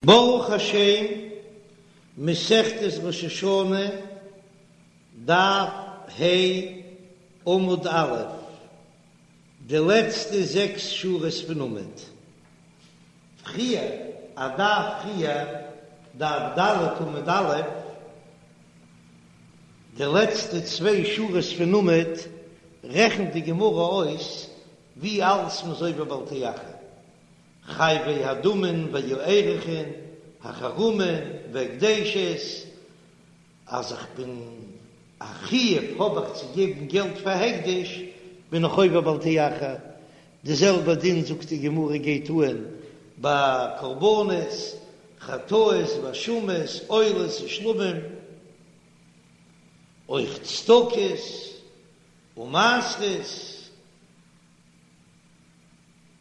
ברוך השם, מסכת ראש השנה, דף ה', עמוד א', די לעצטע זעקס שורות פון עמוד. פריער, א דף פריער, דף ד' עמוד א', די לעצטע צוויי שורות פון עמוד, רעכנט די גמרא אויס ווי אלס מ'איז עובר בל תאחר. חייבי הדמין והערכין, החרמין והקדשות, אז איך בין א חיוב האב איך צו געבן געלט פאר הקדש, בין איך עובר בל תאחר, די זעלבע דין זאגט די גמרא גייט אהן ביי קרבנות, חטאות ואשמות, עולות ושלמים, אויך צדקות ומעשרות.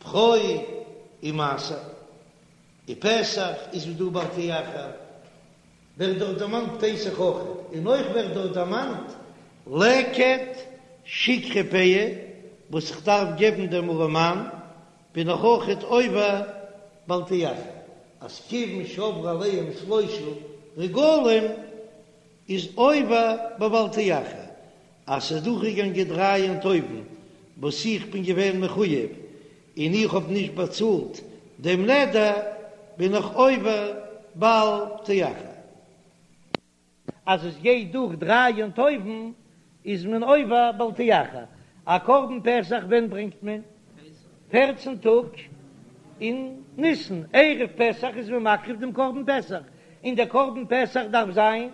בכור ומעשר און פסח איז דא בל תאחר, ווערט דארט דערמאנט פסח אויך, און אויך ווערט דארט דערמאנט לקט שכחה פאה וואס איך דארף געבן דעם ארעמאן, בין איך אויכעט עובר בל תאחר, אז כיוון שעברו עליהם שלושה רגלים איז עובר בבל תאחר, אז ס'איז דורכגעגאנגען דריי יום טובים וואס איך בין געווען מחויב און איך האב נישט באצאלט דעם נדר, בין איך עובר בל תאחר. אז עס גייט דורך דריי יום טובים איז מען עובר בל תאחר. א קרבן פסח ווען ברענגט מען? פערצן טאג אין ניסן, ערב פסח איז מען מקריב דעם קרבן פסח, און דער קרבן פסח דארף זיין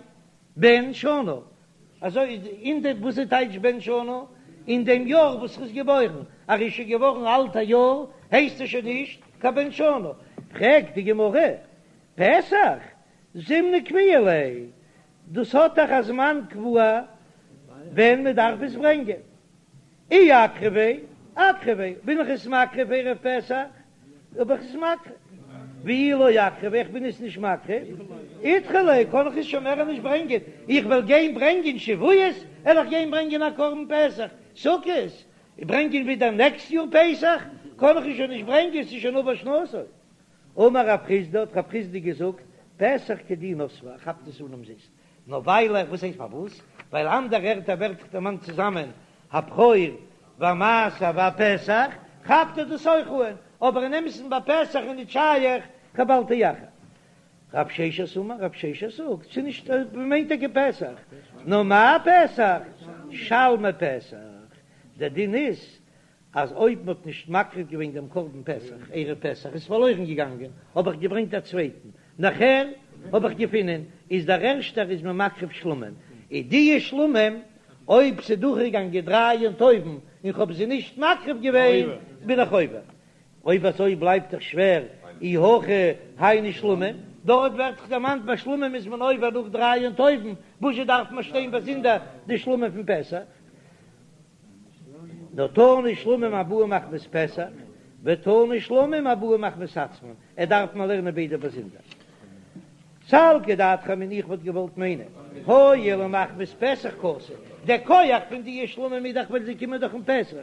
בן שנה, אזוי אין די וואס איז טייטש בן שנה? אין דעם יאר וואס ער איז געבוירן, אז ער איז שוין געווארן אלט א יאר הייסט ער שוין נישט קיין בן שנה. פרעגט די גמרא, פסח זימנא קביעא ליה, דאס האט דאך א זמן קבוע ווען מען דארף עס ברענגען, אי אקרביה, אקרביה, בין איך עס מקריב ערב פסח, האב איך עס מקריב, ואי לא אקרביה, איך בין עס נישט מקריב, אידחי ליה, קען איך עס שוין מער נישט ברענגען, איך וועל גיין ברענגען שבועות, וועל איך גיין ברענגען א קרבן פסח, סוכות, ברענגען ווידער נעקסט יאר פסח, קען איך עס שוין נישט ברענגען, ס'איז שוין עבר שנתו. אמר רב חסדא, האט רב חסדא געזאגט, פסח כדי נסבה, ער כאפט עס אן אומזיסט, נאר ווייל ער, וואס הייסט פארוואס? ווייל אנדערע ערטער ווערט דאך דערמאנט צוזאמען הבכור והמעשר והפסח, כאפט ער דאס אויך אן, אבער אין אמת'ן ביי פסח איז נישט שייך קיין בל תאחר. רב ששת אמר, רב ששת זאגט, ס'איז נישט, מ'מיינט טאקע פסח, נאר מאי פסח? שלמי פסח, דער דין איז אז אויב מ'האט נישט מקריב געווען דעם קרבן פסח ערב פסח איז פארלוירן געגאנגען, האב איך געברענגט א צווייטן, נאכער האב איך געפונען איז דער ערשטער איז מען מקריב שלמים, איז דיע שלמים אויב ס'איז דורכגעגאנגען דריי יום טובים און כ'האב זיי נישט מקריב געווען בין איך עובר. אויב אזוי בלייבט דאך שווער אי הכי היינו שלמים, דארט ווערט דאך דערמאנט ביי שלמים איז מען עובר נאך דריי יום טובים, וואזשע דארף מען שטיין באזונדער די שלמים פון פסח? נאר תנא שלמים הבאים מחמת פסח, ותנא שלמים הבאים מחמת עצמן, ער דארף מען לערנען ביידע באזונדער. סלקא דעתך אמינא איך וואלט געוואלט מיינען, הואיל ומחמת פסח קאתי, דער כח פון די שלמים איז דאך ווייל זיי קומען דאך אום פסח,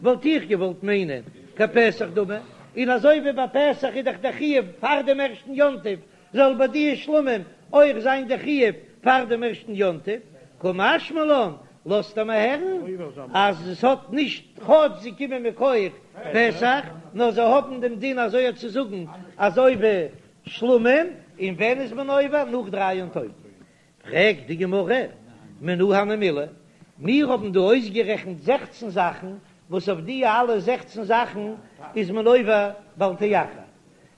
וואלט איך געוואלט מיינען כפסח דמי, און אזוי ווי ביי פסח איז דאך דער חיוב פאר דעם ערשטן יום טוב, זאל ביי די שלמים אויך זיין די חיוב פאר דעם ערשטן יום טוב, קא משמע לן, לאזט ער מיר הערן אז עס האט נישט כאטש זיי קומען מכח פסח, נאר זיי האבן דעם דין אזוי צו זאגן אזוי ווי שלמים, און ווען איז מען עובר? נאך דריי יום טובים. פרעגט די גמרא, מנא הני מילי, מיר האבן דא אויסגערעכנט זעכצן זאכן, וואס אויף די אלע זעכצן זאכן איז מען עובר בל תאחר,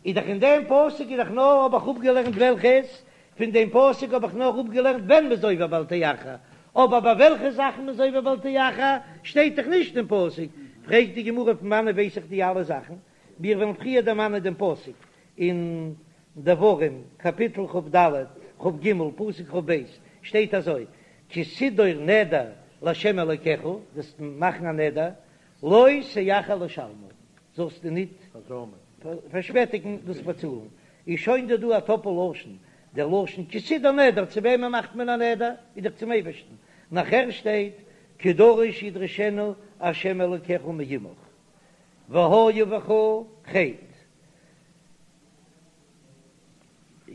איז דאך אין דעם פסוק איז דאך נאר האב איך אפגעלערנט וועלכעס, פון דעם פסוק האב איך נאר אפגעלערנט ווען מ'איז עובר בל תאחר, אבער ביי וועלכע זאכן מ'איז עובר בל תאחר שטייט דאך נישט אין פסוק, פרעגט די גמרא פון וואנעט ווייס איך די אלע זאכן, מיר וועלן פריער דערמאנען דעם פסוק אין דברים קאפיטל כ"ד, כ"ג, פסוק כ"ב, שטייט אזוי, כי תדור נדר לה' אלוקיך, וועסט מאכן א נדר, לא תאחר לשלמו, זאלסטו ניט פארשפעטיגן דאס באצאלן, איז שוין דא דא א טאפל לשון, דער לשון כי תדור נדר, צו וועמען מאכט מען א נדר? איז דאך צום אייבערשטן, נאכער שטייט כי דרוש ידרשנו ה' אלוקיך מעמך, והיה בך חטא.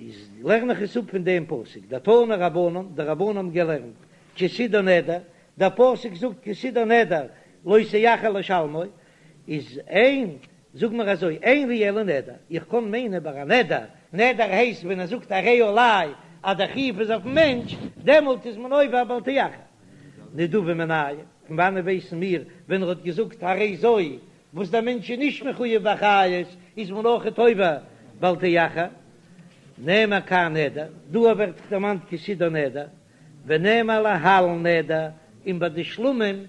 איז לערן איך עס אפ פון דעם פסוק, דתנו רבנן, די רבנן האבן געלערנט, כי תדור נדר, דער פסוק זאגט כי תדור נדר לא תאחר לשלמו, איז אין, זאג מיר אזוי, אין לי אלא נדר, איך קען מיינען ביי א נדר, נדר הייסט ווען ער זאגט הרי עלי אז דער חיוב איז אויפן מענטש, דעמאלט איז מען עובר בל תאחר. נדבה מנין, פון וואנען ווייסן מיר ווען ער האט געזאגט הרי זו וואס דער מענטש איז נישט מחויב באחריות איז מען אויכעט עובר בל תאחר, נאמר כאן נדר, דא ווערט דערמאנט כי תדור נדר, ונאמר להלן נדר, און ביי די שלמים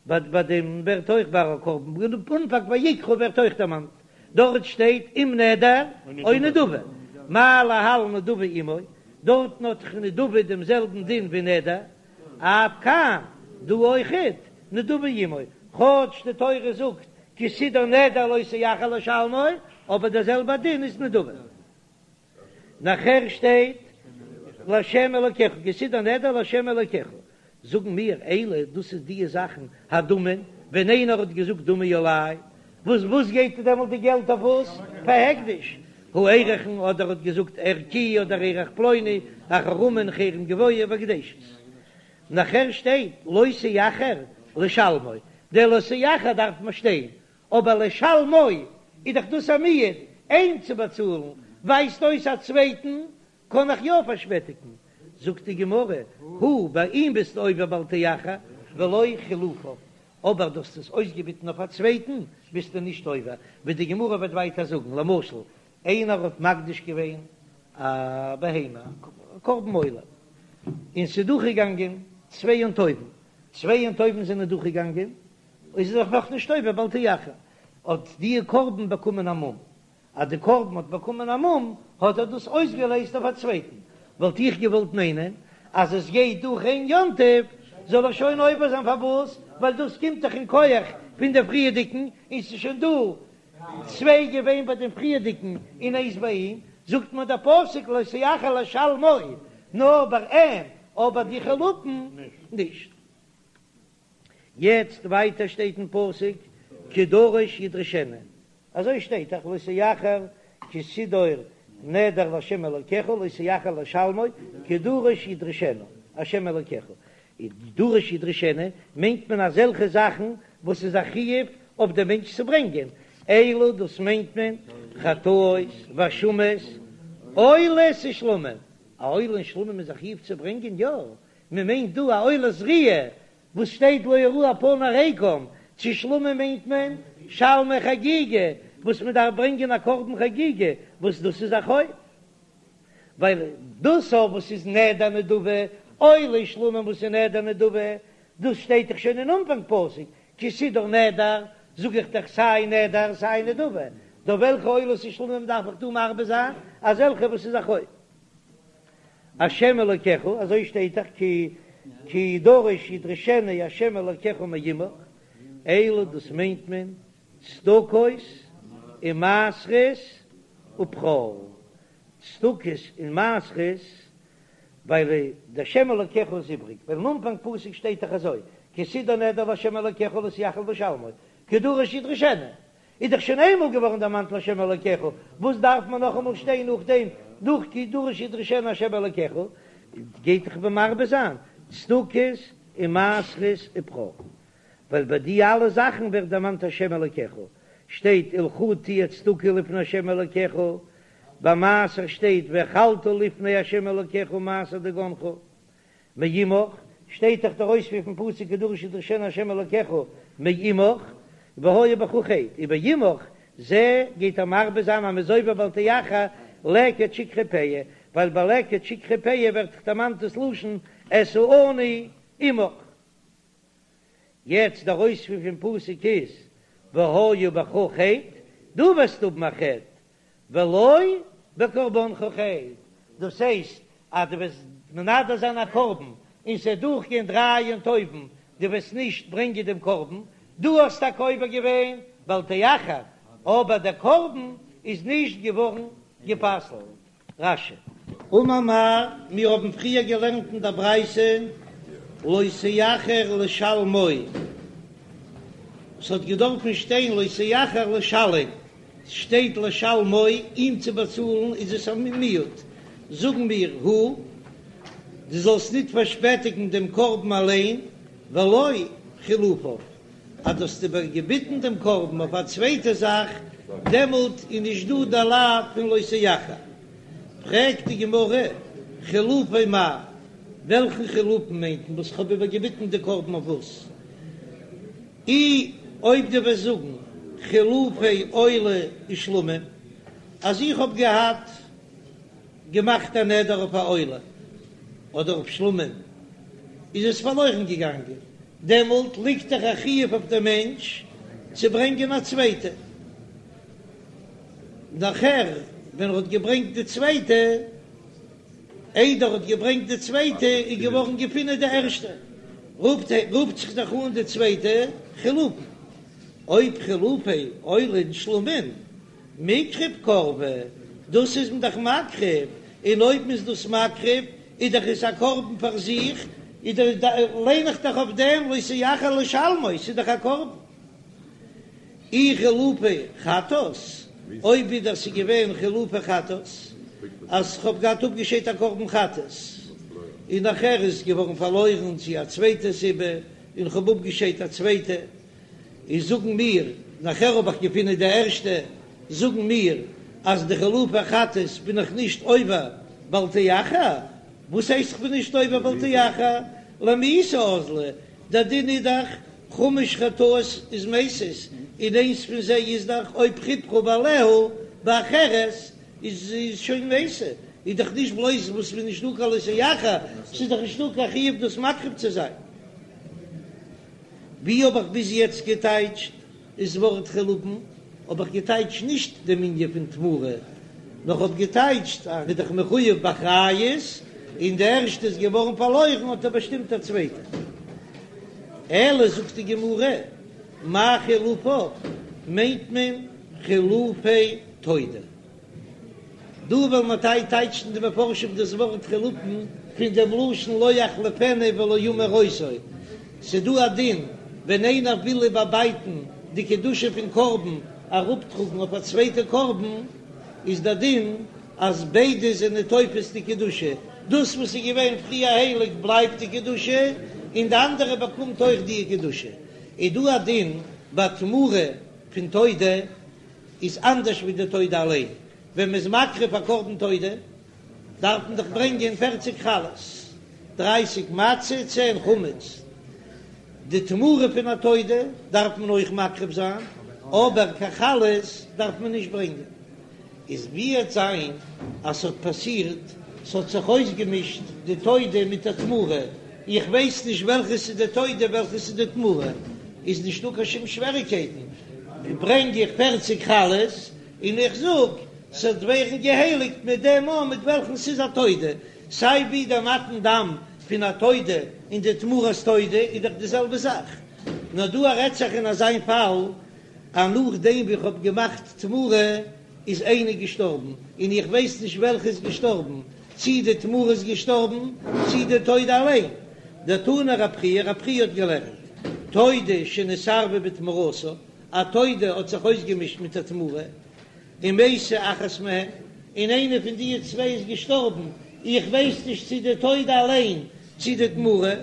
ביי ביי דעם ווערט אויך ביי א קרבן אנפאנג ויקרא ווערט אויך דערמאנט, דארט שטייט אם נדר או נדבה, מה להלן נדבה עמו, דארטן האט דאך נדבה דעם זעלבן דין ווי נדר, אף כאן, דא אויכעט, נדבה עמו, כאטש די תורה זאגט כי תדור נדר לא תאחר לשלמו, אבער דער זעלבער דין איז נדבה. נאכער שטייט לה' אלקיך, כי תדור נדר לה' אלקיך, זאגן מיר אלו דאס איז די זאכן הדמין, ווען איינער האט געזאגט דמי עלי, וואס וואס גייט דעמאלט די געלט אויף וואס? פאר הקדש, הערכין אדער האט געזאגט ערכי אדער ערך פלוני, החרמין חרם גבוה והקדשות. נאכער שטייט לא תאחר לשלמו, דער לא תאחר דארף מען שטיין, אבער לשלמו איז דאך דאס א מיעוט, אים צו באצאלן ווייזט אויס א צווייטן קען איך יא פארשפעטיגן, זאגט די גמרא, הוא ביי אים ביסטו עובר בל תאחר ולא חילופיו, אבער דו האסט עס אויסגעביטן אויף א צווייטן ביסטו נישט עובר, ווי די גמרא וועט ווייטער זאגן, למשל איינער האט מקדיש געווען א בהמה, א קרבן עולה, און ס'איז דורכגעגאנגען צוויי יום טובים, צוויי יום טובים זענען דורכגעגאנגען, איז ער דאך נאכנישט עובר בל תאחר, האט די קרבן באקומען א מום, אז די קרבן האט באקומען א מום האט ער דאס אויסגעלעזט אויף א צווייטן, וואלט איך געוואלט מיינען אז עס גייט דורך איין יום טוב זאל ער שוין עובר זיין, פארוואס? ווייל דאס קומט דאך אין כח פון די פריערדיגן, און ס'איז שוין דא צוויי געווען ביי דעם פריערדיגן און איינס ביי אים, זאגט מיר דער פסוק לא תאחר לשלמו, נאר ביי אים, אבער די חילופין נישט. יעצט ווייטער שטייט אין פסוק כי דרוש ידרשנו, אזוי שטייט דאך לא תאחר כי תדור נדר לה' אלקיך לא תאחר לשלמו כי דרוש ידרשנו ה' אלקיך, דרוש ידרשנו מיינט מען אזעלכע זאכן וואס איז א חיוב אויף דעם מענטש צו ברענגען, אלו דאס מיינט מען חטאות ואשמות עולות ושלמים, א עולה און שלמים איז א חיוב צו ברענגען? יא, מען מיינט דא א עולת ראיה וואס שטייט לא יראו פני ריקם, צו שלמים מיינט מען שלמי חגיגה וואס מען דארף ברענגען א קרבן חגיגה וואס דאס איז א חוב, ווייל דאס אויף וואס איז נדר נדבה, עולה שלמים וואס איז נדר נדבה, דאס שטייט דאך שוין אין אנפאנג פסוק, כי תדור נדר, זאג איך דאך סיי נדר סיי נדבה, טא וועלכע עולות ושלמים דארף איך דא מרבה זיין? אזעלכע וואס איז א חוב. השם אלוקיך, אזוי שטייט דאך כי כי דרוש ידרשנו השם אלוקיך מעמך, אלו דאס מיינט מען צדקות ומעשרות ובכור, צדקות און מעשרות, ווייל די השם אלוקיך איז איבריג, ווייל אין אנפאנג פסוק שטייט דאך אזוי כי תדור נדר להשם אלוקיך לא תאחר לשלמו, כי דרוש ידרשנו, איז דאך שוין איינמאל געווארן דערמאנט להשם אלוקיך, וואס דארף מען נאכאמאל שטיין נאכדעם נאך כי דרוש ידרשנו השם אלוקיך, גייט דאך מרבה זיין צדקות און מעשרות ובכור, ווייל ביי די אלע זאכן ווערט דערמאנט השם אלוקיך, שטייט ולך תהיה צדקה לפני השם אלוקיך, ביי מעשר שטייט ואכלת לפני השם אלוקיך מעשר דגנך. מעמך, שטייט דאך דער אויספיר פון פסוק כי דרוש ידרשנו ה' אלקיך מעמך, והיה בך חטא, ובעמך זה גייט ער מרבה זיין אז מ'איז עובר בל תאחר לקט שכחה פאה, ווייל ביי לקט שכחה פאה ווערט דאך דערמאנט דאס לשון את העני עמך. יעצט דער אויספיר פון פסוק איז והיה בך חטא, דו וועסט האבן א חטא, ולא בקרבנך חטא, דאס הייסט אז דו וועסט מנדר זיין א קרבן און ס'וועט דורכגיין דריי יום טובים, דו וועסט נישט ברענגען דעם קרבן, דו האסט טאקע עובר געווען בל תאחר, אבער דער קרבן איז נישט געווארן גע'פסל'ט. רש"י. אמר מר, מיר האבן פריער געלערנט אין דער ברייתא לא תאחר לשלמו, ס'האט געדארפן שטיין לא תאחר לשלם, ס'שטייט לשלמו, אים צו באצאלן איז עס א מיעוט. זאגן מיר הוא, דו זאלסט ניט פארשפעטיגן דעם קרבן אליין, ולא חילופיו, אז דו האסט איבערגעביטן דעם קרבן אויף א צווייטע זאך, דעמאלט איז נישט דא דער לאו פון לא תאחר. פרעגט די גמרא, חילופי מאי, וועלכן חילופין מיינט מען וואס כ'האב איבערגעביטן די קרבן אויף וואס? אי אויב דו וועסט זאגן חילופי עולה ושלמים, אז איך האב געהאט געמאכט א נדר אויף א עולה אדער אויף שלמים, איז עס פארלוירן געגאנגען, דעמאלט ליגט דאך א חיוב אויף דעם מענטש צו ברענגען א צווייטע. נאכער ווען ער האט געברענגט די צווייטע, איידער ער האט געברענגט די צווייטע איז געווארן געפינען די ערשטע, רופט רופט זיך דאך אן די צווייטע חילופין, אויב חילופי עולה און שלמים מיקרב קרבי, דאס איז מען דאך מקריב, און אויב מען איז דאס מקריב איז דאך עס א קרבן פאר זיך, איז דאך ליין איך דאך אויף דעם לא תאחר לשלמו, ס'איז דאך א קרבן. אי חילופי חטאת, אויב ווידער ס'איז געווען חילופי חטאת, אז כ'האב געהאט אפגעשיידט א קרבן חטאת, און נאכער איז עס געווארן פארלוירן צו א צווייטע סיבה, און כ'האב אפגעשיידט א צווייטע, איז זאגן מיר, נאכער האב איך געפונען די ערשטע, זאגן מיר אז די חילופי חטאת בין איך נישט עובר בל תאחר, וואס הייסט כ'בין נישט עובר בל תאחר? למיתה אזלא, דער דין איז דאך חמש חטאות איז מתות, און איינס פון זיי איז דאך אויב חפרה בעליה באחרת איז שוין מתה, איז דאך נישט בלויז וואס ס'איז נישטא קיין לא תאחר, ס'איז דאך נישטא קיין חיוב דאס מקריב צו זיין. ווי האב איך ביז יעצט געטייטשט איז ווארט חילופין האב איך געטייטשט נישט דעם ענין פון תמורה, נאר כ'האב געטייטשט אז מ'איז דאך מחויב באחריות, און די ערשטע איז געווארן פארלוירן האט ער באשטימט א צווייטע. אלא זאגט די גמרא, מאי חילופיו מיינט מען חילופי תודה. דא וועלן מיר טייטשן די מפרשים דאס ווארט חילופין פון דעם לשון לא יחליפנו ולא ימיר אותו. ס'דא א דין ווען איינער וויל איבערבייטן די קדושה פון קרבן אראפטראגן אויף א צווייטע קרבן, איז דער דין אז ביידע זענען תופס די קדושה, דאס וואס איז געווען פריער הייליג בלייבט די קדושה, און די אנדערע באקומט אויך די קדושה. איז דא א דין ביי תמורה פון תודה איז אנדערש ווי די תודה אליין, ווען מ'איז מקריב א קרבן תודה דארף מען דאך ברענגען פערציג חלות, דרייסיג מצה, צען חמץ, די תמורה פון א תודה דארף מען אויך מקריב זיין, אבער קיין חלות דארף מען נישט ברענגען. איז ווי וועט זיין אז ס'האט פאסירט, ס'האט זיך אויסגעמישט די תודה מיט די תמורה, איך ווייס נישט וועלכע ס'איז די תודה וועלכע ס'איז די תמורה, איז נישטא קיין שום שוועריקייטן, ברענג איך פערציג חלות און איך זאג ס'וועט ווערן געהייליגט מיט דעם אן מיט וועלכן ס'איז א תודה, סיי ווי דער מתן דם פון א תודה און די תמורת תודה איז דאך די זעלבע זאך, נאר דא רעדט זיך אין אזיין פאל אז נאכדעם ווי כ'האב געמאכט תמורה איז איינער געשטארבן און איך ווייס נישט וועלכע איז געשטארבן, צי די תמורה איז געשטארבן צי די תודה אליין. דתני רב חייא, רב חייא האט געלערנט, תודה שנתערבה בתמורתה, א תודה האט זיך אויסגעמישט מיט א תמורה, ומתה אחת מהן, און איינע פון די צוויי איז געשטארבן, איך ווייס נישט צי די תודה אליין צי די תמורה,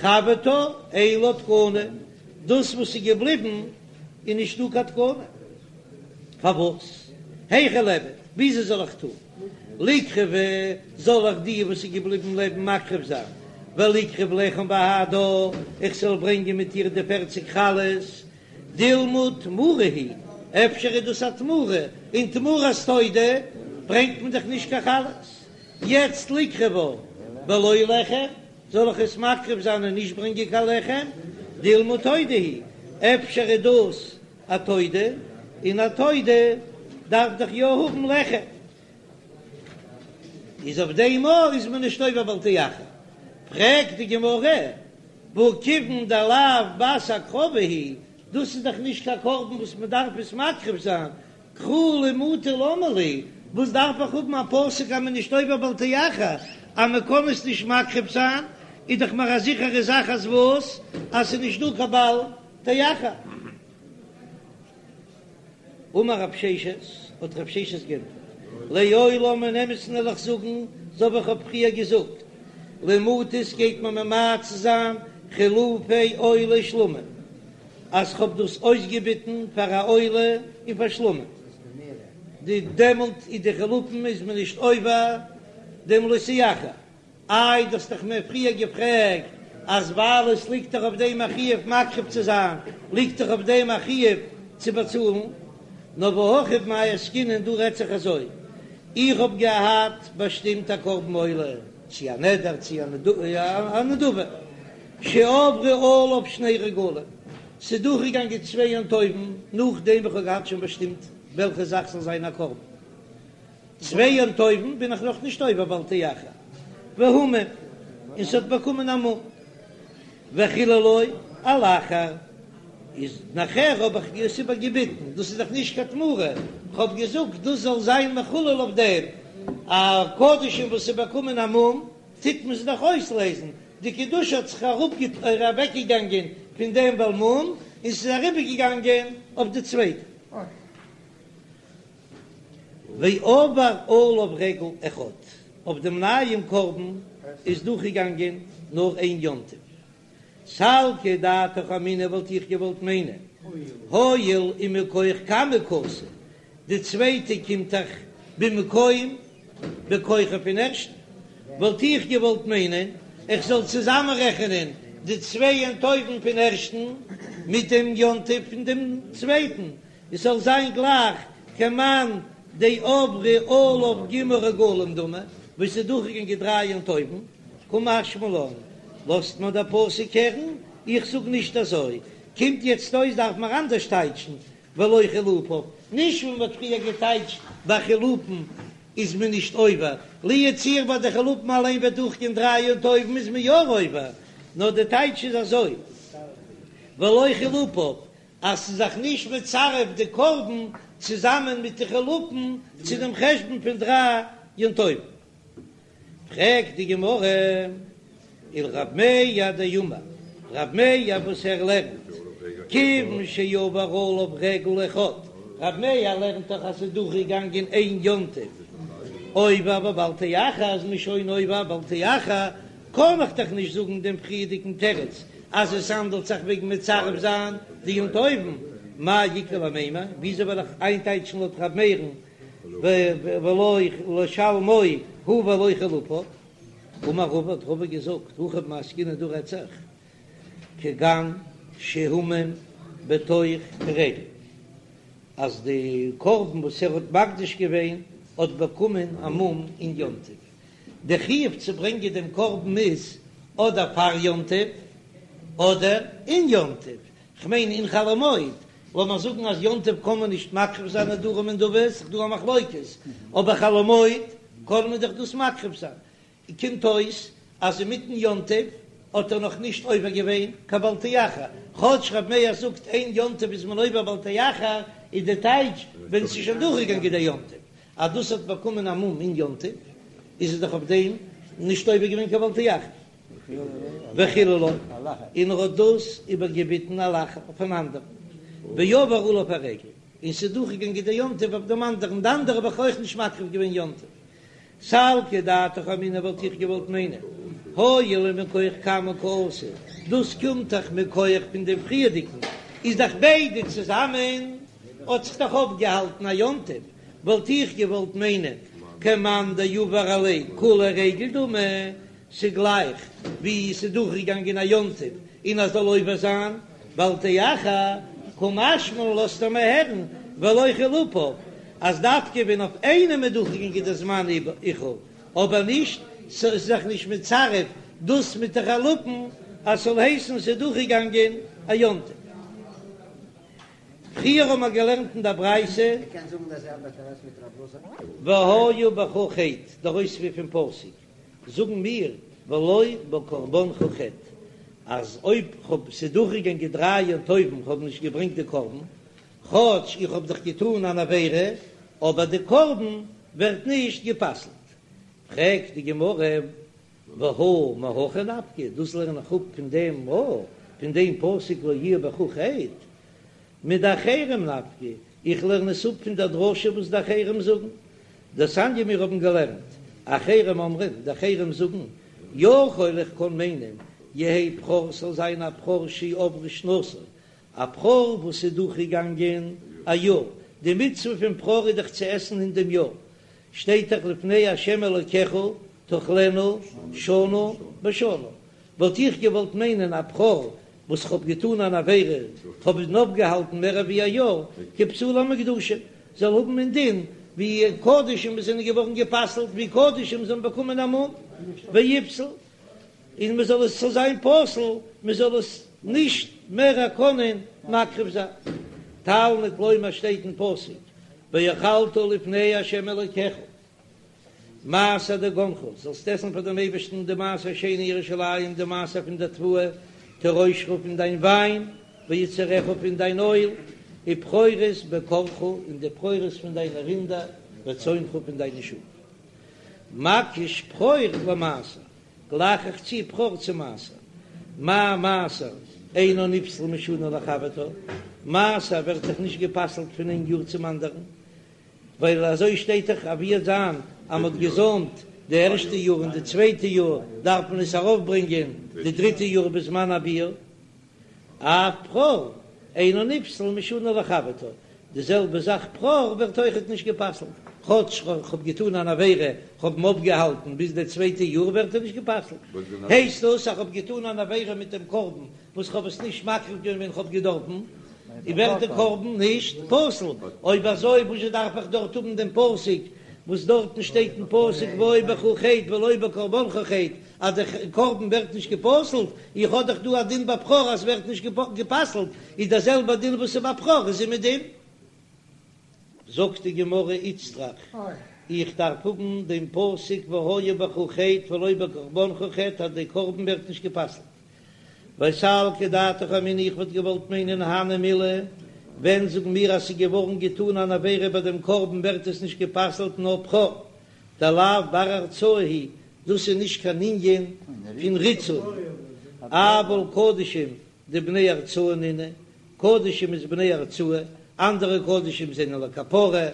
חברתה אין לה תקנה, דאס וואס איז געבליבן איז נישטא קיין תקנה. פארוואס? היכי ליעבד, וויאזוי זאל איך טון? ליקרבה, זאל איך די וואס איז געבליבן לעבן מקריב זיין, וליקרב לחם בהדה, איך זאל ברענגען מיט איר די פערציג חלות, דילמא תמורה היא, אפשר איז דאס א תמורה, און תמורת תודה ברענגט מען דאך נישט קיין חלות, יעצט ליקרבה בלא לחם, זאל איך עס מקריב זיין און נישט ברענגען קיין לחם, דילמא תודה היא, אפשר איז דאס א תודה, און א תודה דארף דאך יא האבן לחם, איז אויף דעם אויך איז מען נישט עובר בל תאחר. פרעגט די גמרא, והא כיוון דלאו בת הקרבה היא, דאס איז דאך נישט קיין קרבן וואס מען דארף עס מקריב זיין, קרא למעוטי למה לי, וואס דארף איך האבן א פסוק אז מען איז נישט עובר בל תאחר, אז מען קען עס נישט מקריב זיין, איז דאך מיר א זיכערע זאך אז וואס? אז ס'איז נישט דא קיין בל תאחר. אמר רב ששת, האט רב ששת גענטפערט. לעולם אין אמת'ן וועל איך זאגן, אזוי ווי איך האב פריער געזאגט, למעוטי גייט מען ממעט זיין חילופי עולה שלמים, אז כ'האב דאס אויסגעביטן פאר א עולה און פאר שלמים, די דעמאלט איז די חילופין איז מען נישט עובר דעם לא תאחר. איי דו האסט דאך מיר פריער געפרעגט אז ווייל עס ליגט דאך אויף דעם א חיוב מקריב צו זיין, ליגט דאך אויף דעם א חיוב צו באצאלן. נאר והכא במאי עסקינן, דא רעדט זיך אזוי, איך האב געהאט באשטימט א קרבן עולה, צו א נדר צו א נדבה, שעברו עליו שני רגלים, ס'איז דורכגעגאנגען צוויי יום טובים נאכדעם ווי כ'האב געהאט שוין באשטימט וועלכע זאך זאל זיין א קרבן. צוויי יום טובים בין איך נאך נישט עובר בל תאחר, והומם, און ס'האט באקומען א מום, וחיללו על אחר, איז נאכער האב איך עס איבערגעביטן, דאס איז דאך נישט קיין תמורה, כ'האב געזאגט דאס זאל זיין מחולל אויף דעם, א קדשים וואס איז באקומען א מום, טוט מען עס דאך אויסלעזן, די קדושה האט זיך אוועקגעגאנגען פון דעם בעל מום, און ס'איז אריבערגעגאנגען אויף די צווייטע. ועבר עליו רגל אחד, אויף דעם נייעם קרבן איז דורכגעגאנגען נאר איין יום טוב. סלקא דעתך אמינא וואלט איך געוואלט מיינען, הואיל ומכח קמא קאתי, די צווייטע קומט דאך במקום בכוחו פון ערשטן, וואלט איך געוואלט מיינען איך זאל צוזאמענרעכענען די צוויי יום טובים פון ערשטן מיט דעם יום טוב פון דעם צווייטן, עס זאל זיין גלייך כמאן דעברו עליו ג' רגלים דמי, וואס איז דורכגעגאנגען דריי יום טובים, קא משמע לן, לאזט מיר דער פסוק הערן, איך זאג נישט אזוי, קומט יעצט אויס דארף מען אנדערש טייטשן ולא חילופיו, נישט ווי מען האט פריער געטייטשט ביי חילופין איז מען נישט עובר, לו יצוייר ביי די חילופין אליין וועט דורכגיין דריי יום טובים איז מען יא עובר, נאר די טייטש איז אזוי ולא חילופיו אז ס'איז זיך נישט מצרף די קרבן צוזאמען מיט די חילופין צו דעם חשבון פון דריי יום טובים. פרעגט די גמרא, ולרב מאיר דאמר, רב מאיר וואס ער לערנט כיוון שעבר עליו רגל אחד, רב מאיר לערנט דאך אז ס'איז דורכגעגאנגען איין יום טוב עובר בבל תאחר איז מען שוין עובר בל תאחר, קען איך דאך נישט זאגן דעם פריערדיגן תירוץ אז עס האנדלט זיך וועגן מצרף זיין די יום טובים, מאי איכא למימר, וויאזוי וועל איך איינטייטשן לויט ר' מאיר'ן ולא לשלמו הוא ולא חילופיו? אמר רבא האט רבא געזאגט, הכא במאי עסקינן דא רעדט זיך כגון שהומם בתוך הרגל, אז די קרבן וואס ער האט מקדיש געווען האט באקומען א מום אין יום טוב, די חיוב צו ברענגען דעם קרבן איז אדער פאר יום טוב אדער אין יום טוב, כ'מיין אין חול המועד, לאמיר זאגן אז יום טוב קען מען נישט מקריב זיין נדרים ונדבות, ס'איז דא א מחלוקת, אבער חול המועד קען מען דאך דאס מקריב זיין, קומט אויס אז אינמיטן יום טוב האט ער נאך נישט עובר געווען קיין בל תאחר, כאטש ר' מאיר זאגט אין יום טוב איז מען עובר בל תאחר, איז די טייטש ווען ס'איז שוין דורכגעגאנגען דער יום טוב, אז דאס האט באקומען א מום אין יום טוב, איז עס דאך אויף דעם נישט עובר געווען קיין בל תאחר. וחיללו, און ער האט דאס איבערגעביטן על אחר אויף אן אנדערן, ועבר עליו הרגל, און ס'איז דורכגעגאנגען דער יום טוב אויף דעם אנדערן, די אנדערע האב איך אויך נישט מקריב געווען יום טוב. סלקא דעתך אמינא וואלט איך געוואלט מיינען, הואיל ומכח קמא קאתי, דאס קומט דאך מכח פון דעם פריערדיגן, איז דאך ביידע צוזאמען האט זיך דאך אויפגעהאלטן א יום טוב, וואלט איך געוואלט מיינען כמאן דעבר עליה כוליה רגל דמי, ס'גלייך ווי ס'איז דורכגעגאנגען א יום טוב און אז זאל עובר זיין בל תאחר, קא משמע לן לאזט ער מיר הערן ולא חילופיו אז דווקא ווען אויף איינעם איז דורכגעגאנגען די זמן איחור, אבער נישט ס'איז זיך נישט מצרף דאס מיט די חילופין אז ס'זאל הייסן ס'איז דורכגעגאנגען א יום טוב. פריער האבן מיר געלערנט אין דער ברייתא. והיה בך חטא, דער אויספיר פון פסוק, זאגן מיר ולא בקרבנך חטא, אז אויב כ'האב ס'איז דורכגעגאנגען דריי יום טובים כ'האב נישט געברענגט די קרבן, כאטש איך האב דאך געטאן אן עבירה, אבער די קרבן ווערט נישט גע'פסל'ט. פרעגט די גמרא, והא מהכא נפקא, דאס לערן איך אפ פון דעם א, פון דעם פסוק לא יהיה בך חטא, מדאחרים נפקא, איך לערן עס אפ פון דער דרשה וואס די אחרים זאגן. דתניא מיר האבן געלערנט, אחרים אומרים, די אחרים זאגן, יכול איך קען מיינען, יהא בכור ס'זאל זיין א בכור שעברה שנתו, א בכור וואס איז דורכגעגאנגען א יאר, די מצוה פון בכור איז דאך צו עסן אין דעם יאר, שטייט דאך לפני ה' אלוקיך תאכלנו שנה בשנה, וואלט איך געוואלט מיינען א בכור וואס כ'האב געטאן אן עבירה, כ'האב אים אויפגעהאלטן מער ווי א יאר, כפסולי המוקדשים, זאל האבן אין דין ווי קדשים וואס זענען געווארן גע'פסל'ט, ווי קדשים זאלן באקומען א מום, ויפסל, און מען זאל עס זאל זיין פסול, מען זאל עס נישט מער קענען מקריב זיין. תלמוד לומר שטייט אין פסוק, ואכלת לפני ה' אלוקיך. מעשר דגנך, זאלסט עסן פאר דעם אייבערשטן די מעשר שני אין ירושלים, די מעשר פון דער תבואה, תירושך פון דיין וויין, ויצהרך פון דיין אויל, ובכורות בקרך, און די בכורות פון דיינע רינדער, וצאנך פון דיינע שאף. מקיש בכור למעשר, גלייך איך צו בכור צו מעשר. מה מעשר אינו נפסל משנה לחברתה, מעשר ווערט דאך נישט גע'פסל'ט פון איין יאר צום אנדערן, ווייל אזוי שטייט דאך אז ווי זיין אז מ'האט געזוימט די ערשטע יאר און די צווייטע יאר דארף מען עס ארויפברענגען די דריטע יאר בזמן הביעור, אף בכור אינו נפסל משנה לחברתה, די זעלבע זאך בכור ווערט אויכעט נישט גע'פסל'ט, כאטש כ'האב געטון אן עבירה, כ'האב אים אויפגעהאלטן ביז די צווייטע יאר ווערט ער נישט גע'פסל'ט, הייסט דאס אז כ'האב געטון אן עבירה מיט דעם קרבן וואס כ'האב עס נישט מקריב געווען ווען כ'האב געדארפן, און ווערט די קרבן נישט פסול, אויב אזוי וואזשע דארף איך דארט האבן דעם פסוק וואס דארטן שטייט אין פסוק והיה בך חטא ולא בקרבנך חטא אז די קרבן ווערט נישט גע'פסל'ט, איך האב דאך דא א דין ביי בכור אז ס'ווערט נישט גע'פסל'ט, איז דער זעלבער דין וואס איז ביי בכור איז אומעדום. זאגט די גמרא איצטריך, איך דארף האבן דעם פסוק והיה בך חטא ולא בקרבנך חטא אז די קרבן ווערט נישט גע'פסל'ט. ווייל סלקא דעתך אמינא איך וואלט געוואלט מיינען הני מילי, ווען זאגן מיר אז ס'איז געווארן געטאן אן עבירה ביי דעם קרבן ווערט עס נישט גע'פסל'ט נאר בכור דלאו בר הרצאה הוא, דאס איז נישט קיין ענין פון ריצוי, אבל קדשים דבני הרצאה נינהו, קדשים איז בני הרצאה, אנדערע קדשים זענען לכפרה,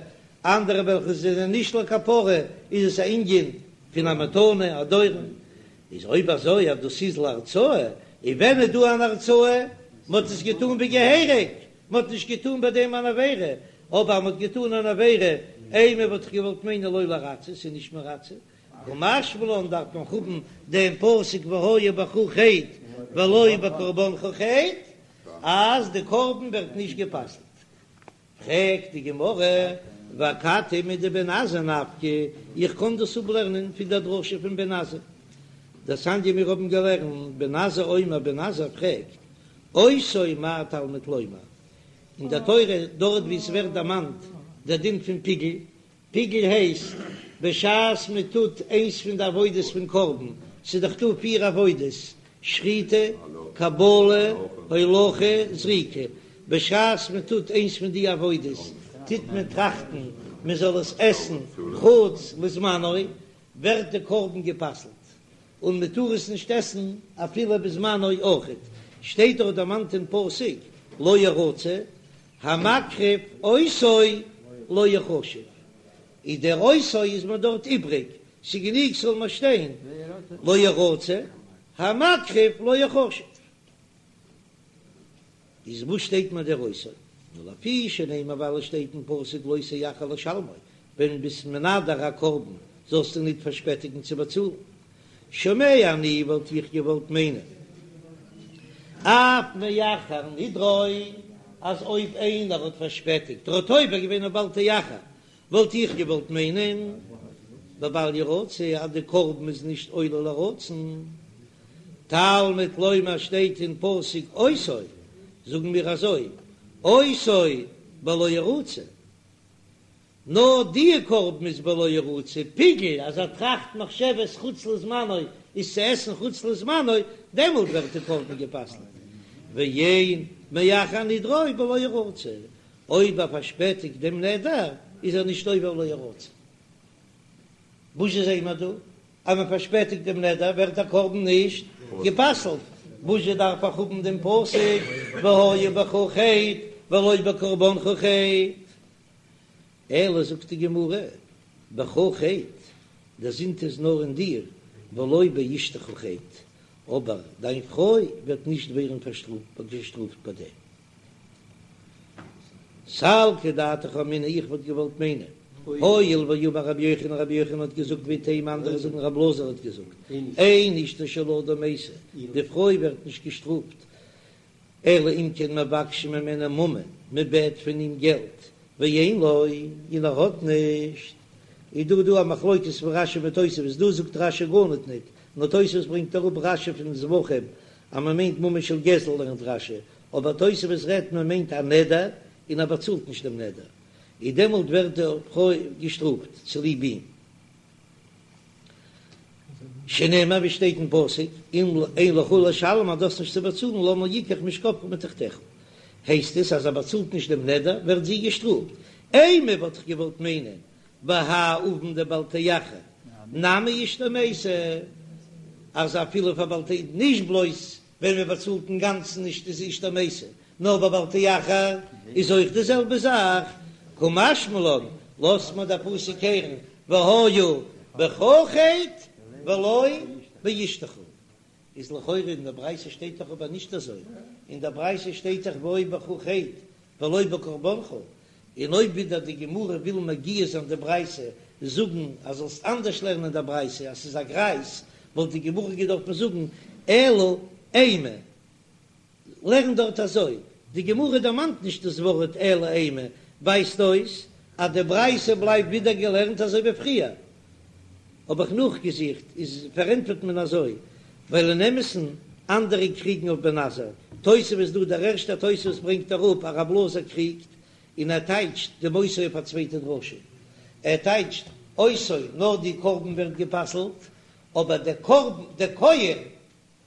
אנדערע וועלכע זענען נישט לכפרה איז עס א ענין פון א מתנה, א דורון, איז אויב אזוי אז דאס איז להרצאה, און ווען איז דא אן הרצאה? מען האט עס געטאן ווי געהעריג, מען האט נישט געטאן ביי דעם אן עבירה, אבער אז מען האט געטאן אן עבירה, אימא וואלט איך געוואלט מיינען לא לרצות, ס'איז נישט מרצה, קא משמע לן דארף מען האבן דעם פסוק והיה בך חטא ולא בקרבנך חטא, אז די קרבן ווערט נישט גע'פסל'ט. פרעגט די גמרא, ואכתי מדבן עזאי נפקא, איך קען דאס אפלערנען פון דער דרשה פון בן עזאי, דתניא מיר האבן געלערנט, בן עזאי אומר, בן עזאי פרעגט, אותו מה תלמוד לומר, אין דער תורה דארט וואו עס ווערט דערמאנט דער דין פון פיגול, פיגול הייסט בשעת מען טוט איינס פון די עבודות פון קרבן, ס'איז דאך דא פיר עבודות, שחיטה, קבלה, הולכה, זריקה, בשעת מען טוט איינס פון די עבודות טוט מען טראכטן מען זאל עס עסן חוץ לזמנו, ווערט די קרבן גע'פסל'ט און מען טאר עס נישט עסן אפילו בזמנו אויכעט, שטייט דאך דערמאנט אין פסוק לא ירצה, המקריב אותו לא יחשב, איז דער אותו איז מיר דארט איבריג, ס'גענוג ס'זאל מיר שטיין לא ירצה, המקריב לא יחשב. איז וואס שטייט מיר דער אותו? נאר לפי שנאמר ווייל עס שטייט אין פסוק לא תאחר לשלמו, ווען ביסט מנדר א קרבן זאלסטו ניט פארשפעטיגן צו באצאלן. שומע אני וואלט איך געוואלט מיינען אף מאחר נדרו אז אויב איינער האט פארשפעטיגט ער האט עובר געווען אויף בל תאחר וואלט איך געוואלט מיינען בבל ירצה אז די קרבן איז נישט עולה לרצון תלמוד לומר שטייט אין פסוק אותו זאגן מיר אזוי אותו בלא ירצה. נאר די קרבן איז בלא ירצה, פיגול אז ער טראכט מחשבת חוץ לזמנו איז צו עסן חוץ לזמנו, דעמאלט ווערט די קרבן גע'פסל'ט, ואין מאחר נדרו בלא ירצה, אויב ער פארשפעטיגט דעם נדר איז ער נישט עובר לא ירצה. וואס זעען מיר דא? אז מען פארשפעטיגט דעם נדר ווערט דער קרבן נישט גע'פסל'ט, וואזשע דארף איך האבן דעם פסוק והיה בך חטא ולא בקרבנך חטא? אלא זאגט די גמרא, בך חטא, דער זינד איז נאר אין דיר, ולא באשתך חטא, אבער דיין פרוי וועט נישט ווערן געשטראפט ביי דעם. סלקא דעתך אמינא איך וואלט געוואלט מיינען, הואיל ואמר רבי יוחנן רבי יוחנן האט געזאגט ואיתימא אנדערע זאגן רבי אלעזר האט געזאגט, אין אשתו של אדם מתה, די פרוי ווערט נישט געשטראפט, אלא אם כן מבקשים ממנו ממון, מען בעט פון אים געלט, ואין לו, און ער האט נישט, איז דא דא א מחלוקת פון רשי מיט תוספות, דא זאגט רשי גארניט ניט, נאר תוספות ברענגט אראפ רשי פון זבחים אז מען מיינט ממון של גזל לערנט רשי, אבער תוספות רעדט מען מיינט א נדר און ער באצאלט נישט דעם נדר, איז דעמאלט ווערט די פרוי געשטראפט צוליב אים. שנאמר ווי שטייט אין פסוק, אם אין לך לשלם אז דו האסט נישט צו באצאלן למה יקח משכבך מתחתיך, הייסט עס אז ער באצאלט נישט דעם נדר ווערט זי געשטראפט, אימא וואלט איך געוואלט מיינען בהאי עון דבל תאחר נמי אשתו מתה, אז אפילו פאר בל ת נישט בלויז ווען מען באצאלט אינגאנצן נישט איז אשתו מתה, נאר ביי בל תאחר איז אויך די זעלבע זאך, קא משמע לן, לאזט מיר דער פסוק הערן והיה בך חטא ולא באשתך. איז לכאורה אין דער ברייתא שטייט דאך אבער נישט אזוי, אין דער ברייתא שטייט דאך והיה בך חטא ולא בקרבנך, און אויב ווידער די גמרא וויל מגיה זיין די ברייתא זאגן אז זאלסט אנדערש לערנען די ברייתא אז ס'איז א גרייז, וואלט די גמרא געדארפן זאגן אלא אימא. לערן דארט אזוי, די גמרא דערמאנט נישט דאס ווארט אלא אימא, ווייזט אויס אז די ברייתא בלייבט ווידער געלערנט אזוי ווי פריער. האב איך נאכגעזוכט, איז פארענטפערט מען אזוי, ווייל אין אמת'ן אנדערע קריגן אויף בן עזאי, תוספות דא, דער ערשטער תוספות ברענגט אראפ אז רב אלעזר קריגט, און ער טייטשט דעם אותו אויף א צווייטע דרשה, ער טייטשט אותו נאר די קרבן ווערט גע'פסל'ט, אבער דער קרבן, דער כהן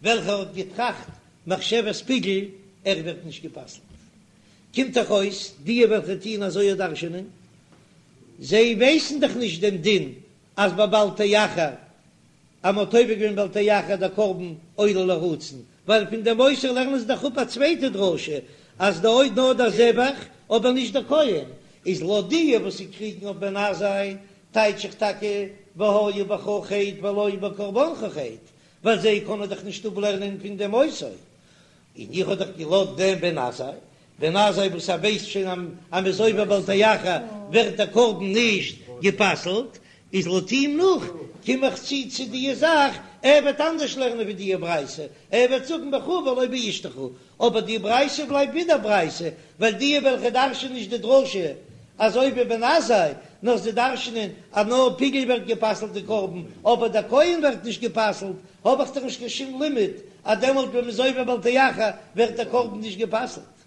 וועלכער האט געטראכט מחשבת פיגול, ער ווערט נישט גע'פסל'ט. קומט דאך אויס, די וועלכע טוען אזוי דרש'ענען, זיי ווייסן דאך נישט דעם דין אז ביי בל תאחר, אז מ'האט עובר געווען בל תאחר דער קרבן עולה לרצון, ווייל פון דעם אותו לערנען זיי דאך אפ א צווייטע דרשה, אז די אויב נאר דער זבח, אבער נישט דער כהן, איז לויט די וואס זיי קריגן אויף בן עזאי, טייטש איך טאקע והיה בך חטא ולא בקרבנך חטא, ווייל זיי קענען דאך נישט אפלערנען פון דעם אותו, און איך האב דאך געלאזט דעם בן עזאי, בן עזאי וואס ער ווייסט שוין אז מ'איז עובר בל תאחר ווערט דער קרבן נישט גע'פסל'ט, איז לויט אים נאך קום איך צו צו די זאך, ער וועט אנדערש לערנען ווי די ברייתא, ער וועט זאגן בך ולא באשתך, אבער די ברייתא בלייבט ווידער ברייתא, ווייל די וועלכע דרש'ענען נישט די דרשה אזוי ווי בן עזאי, נאר זיי דרש'ענען אז נאר פיגול ווערט גע'פסל'ט די קרבן, אבער דער כהן ווערט נישט גע'פסל'ט, האב איך דאך נישט קיין שום לימוד אז דעמאלט ווען מ'איז עובר בל תאחר ווערט דער קרבן נישט גע'פסל'ט.